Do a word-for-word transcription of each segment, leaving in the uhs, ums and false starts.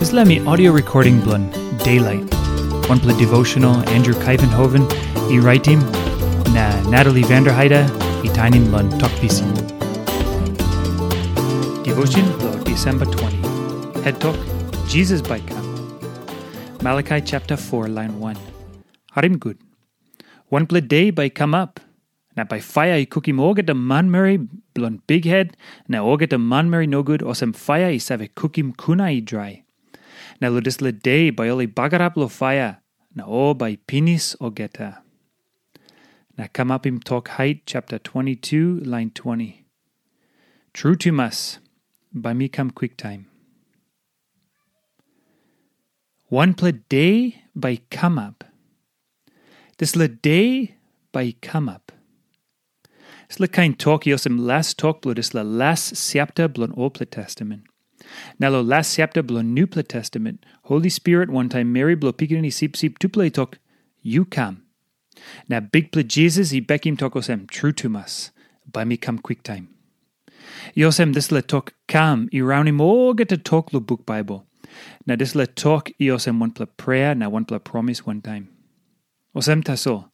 Dispela mi audio recording bilong Daylight. Wanpela devotional Andrew Kaivenhoven i raitim, na Natalie Vanderheide i tainim long Tok Pisin. Devotion bilong December twenty. Head Tok, Jesus bai kam. Malachi chapter four, line one. Harim gut. Wanpela de bai kamap, na bai paia i kukim olgeta manmeri bilong bikhet na olgeta manmeri nogut, olsem paia i save kukim kuna i drai. Na long dispela de bai ol i bagarap long paia, na ol bai pinis olgeta. Na kamapim Tok Hait chapter twenty-two, line twenty. Tru tumas, bai mi kam kwiktaim. Wanpela de bai kamap. Dispela de bai kamap. Dispela kain tok i olsem las tok bilong dispela las chapter bilong Olpela Testament. Na long las chapter bilong Nupela Testament, Holi Spirit wantaim meri bilong pikinini sipsip tupela i tok, "Yu kam." Na Bikpela Jisas i bekim tok olsem, "Tru tumas, bai mi kam kwiktaim." I olsem dispela tok kam i raunim olgeta tok long buk Baibel. Na dispela tok i olsem wanpela prea na wanpela promis wantaim. Olsem tasol,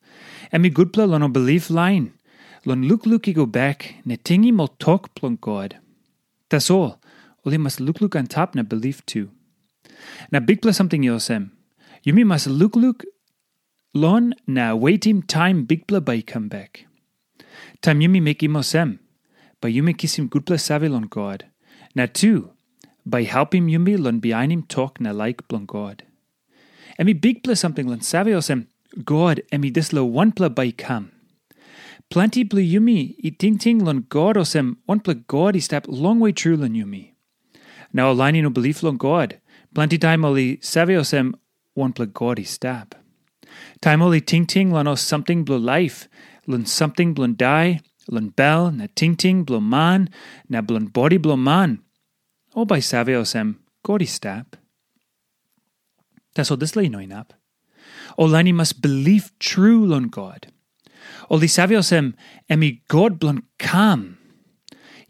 em i gutpela long ol bilip lain, long lukluk i go bek na tingim ol tok bilong God. Tasol, ol i mas lukluk antap na bilip tu. Na bikpela samting i olsem, yumi mas lukluk long na wetim taim Bikpela bai i kam bek. Taim yumi mekim olsem, bai yumi kisim gutpela save long God, na tu, bai helpim yumi long bihainim tok na laik bilong God. Em i bikpela samting long save olsem, God em i dispela wanpela bai i kam. Planti bilong yumi i tingting long God olsem wanpela God i stap longwe tru long yumi. Na ol lain i no bilip long God, planti taim ol i save olsem wanpela God i stap. Taim ol i tingting long ol samting bilong laip, long samting bilong dai, long bel na tingting bilong man, na bilong bodi bilong man, ol bai save olsem God i stap. Tasol dispela i no inap. Ol lain i mas bilip tru long God. Ol i save olsem, em i God bilong kam.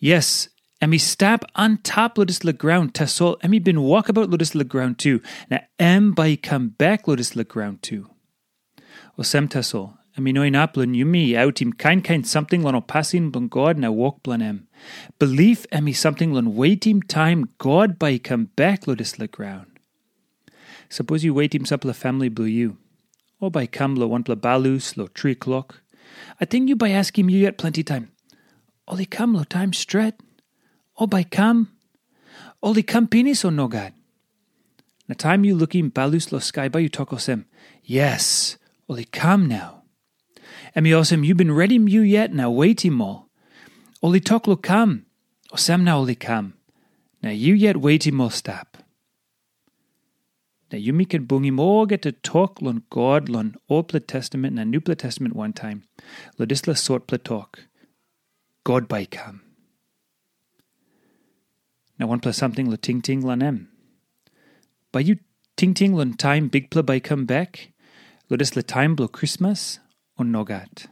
Yes, em i stap antap long dispela graun, tasol em i bin wokabaut long dispela graun tu, na em bai i kam bek long dispela graun tu. Olsem tasol, em i no inap long yumi autim kain kain samting long ol pasin bilong God na wok bilong em. Bilip em i samting long wetim taim God bai i kam bek long dispela graun. Sapos yu wetim sampela famili bilong yu, ol bai i kam long wanpela balus long tri klok, ating yu bai askim yu yet planti taim, "Ol i kam long taim stret? Ol bai i kam? Ol i kam pinis o nogat?" Na taim yu lukim balus long skai, bai yu tok olsem, "Yes, ol i kam nau." Em i olsem yu bin redim yu yet na wetim ol. Ol i tok long kam, olsem na ol i kam. Na yu yet wetim ol stap. Na yumi ken bungim olgeta tok long God long Olpela Testament na Nupela Testament wantaim, long dispela sotpela tok, God bai i kam. Na wanpela samting long tingting long em. Bai yu tingting long taim Bikpela bai i kam bek, long dispela taim bilong Krismas, o nogat?